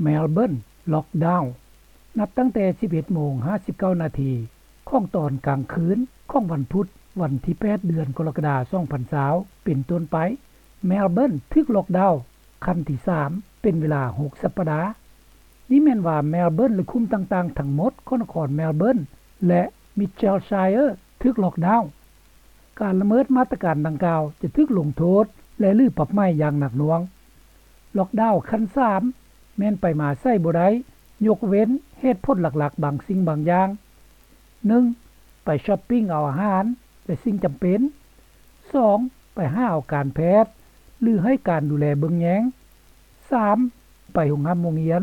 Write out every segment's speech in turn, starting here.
Melbourne Lockdown ນັບຕັ້ງແຕ່ ສິບເອັດໂມງ ຫ້າສິບເກົ້ານາທີ ຂອງຕອນກາງຄືນ ຂອງວັນພຸດ ວັນທີ ແປດ ເດືອນ ກໍລະກະດາ ສອງພັນຊາວ ເປັນຕົ້ນໄປ Melbourne ຖືກ Lockdown ຂັ້ນທີ ສາມ ເປັນເວລາ ຫົກ ສັບປະດາ. ນີ້ແມ່ນວ່າ Melbourne ແລະ ຄຸ້ມຕ່າງໆ ທັງໝົດ ຂອງນະຄອນ Melbourne ແລະ Mitchellshire ຖືກ Lockdown. ການລະເມີດມາດຕະການດັ່ງກ່າວ ຈະຖືກລົງໂທດ ແລະ ຫຼື ປັບໃໝ ຢ່າງໜັກໜ່ວງ. Lockdown ຂັ້ນ ສາມ ແມ່ນໄປມາໃສບໍ່ໄດ້ ຍົກເວັ້ນເຫດຜົນຫຼັກໆ ບາງສິ່ງບາງຢ່າງ. ໜຶ່ງ ໄປ shopping ເອົາອາຫານ ແລະ ສິ່ງຈຳເປັນ. ສອງ ໄປຫາເອົາການແພດ ຫຼື ໃຫ້ການດູແລເບິ່ງແຍງ. ສາມ ໄປໂຮງຮ່ຳໂຮງຮຽນ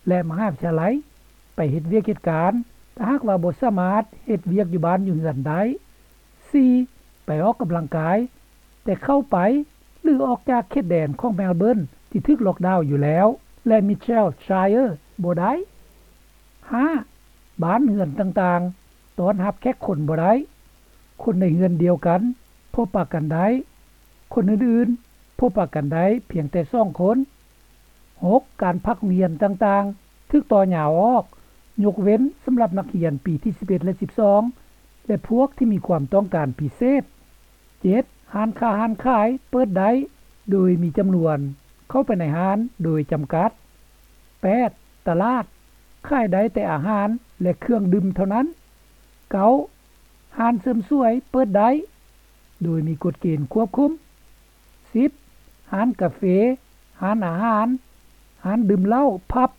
ແລະ ມະຫາວິທະຍາໄລ, ໄປເຮັດວຽກເຮັດການ ຖ້າຫາກວ່າບໍ່ສາມາດເຮັດວຽກຢູ່ບ້ານຢູ່ເຮືອນໄດ້. ສີ່ ໄປອອກກຳລັງກາຍ ແຕ່ເຂົ້າໄປ ຫຼື ອອກຈາກເຂດແດນຂອງ Melbourne ທີ່ຖືກ Lockdown ຢູ່ແລ້ວ ແລະ Mitchellshire ບໍ່ໄດ້. ຫ້າ ບ້ານເຮືອນຕ່າງໆ ຕ້ອນຮັບແຂກຄົນບໍ່ໄດ້. ຄົນໃນເຮືອນດຽວກັນ ພົບປະກັນໄດ້. ຄົນອື່ນໆ ພົບປະກັນໄດ້ພຽງແຕ່ສອງຄົນ. ຫົກ ການພັກໂຮງຮຽນຕ່າງໆ ຖືກຕໍ່ຍາວອອກ ຍົກເວັ້ນສຳລັບນັກຮຽນປີທີ ສິບເອັດ ແລະ ສິບສອງ ແລະ ພວກທີ່ມີຄວາມຕ້ອງການພິເສດ. ເຈັດ ຮ້ານຄ້າຮ້ານຂາຍເປີດໄດ້ ໂດຍມີຈຳນວນເຂົ້າໄປໃນຮ້ານໂດຍຈຳກັດ. ແປດ ຕະຫຼາດ ຂາຍໄດ້ແຕ່ອາຫານ ແລະ ເຄື່ອງດື່ມເທົ່ານັ້ນ. ເກົ້າ ຮ້ານເສີມສວຍເປີດໄດ້ ໂດຍມີກົດເກນຄວບຄຸມ. ສິບ ຮ້ານກາເຟ, ຮ້ານອາຫານ, ຮ້ານດື່ມເຫຼົ້າ, ຜັບ,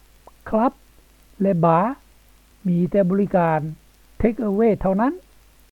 ຄລັບ ແລະ ບາ ມີແຕ່ບໍລິການ ເທກເອເວ ເທົ່ານັ້ນ.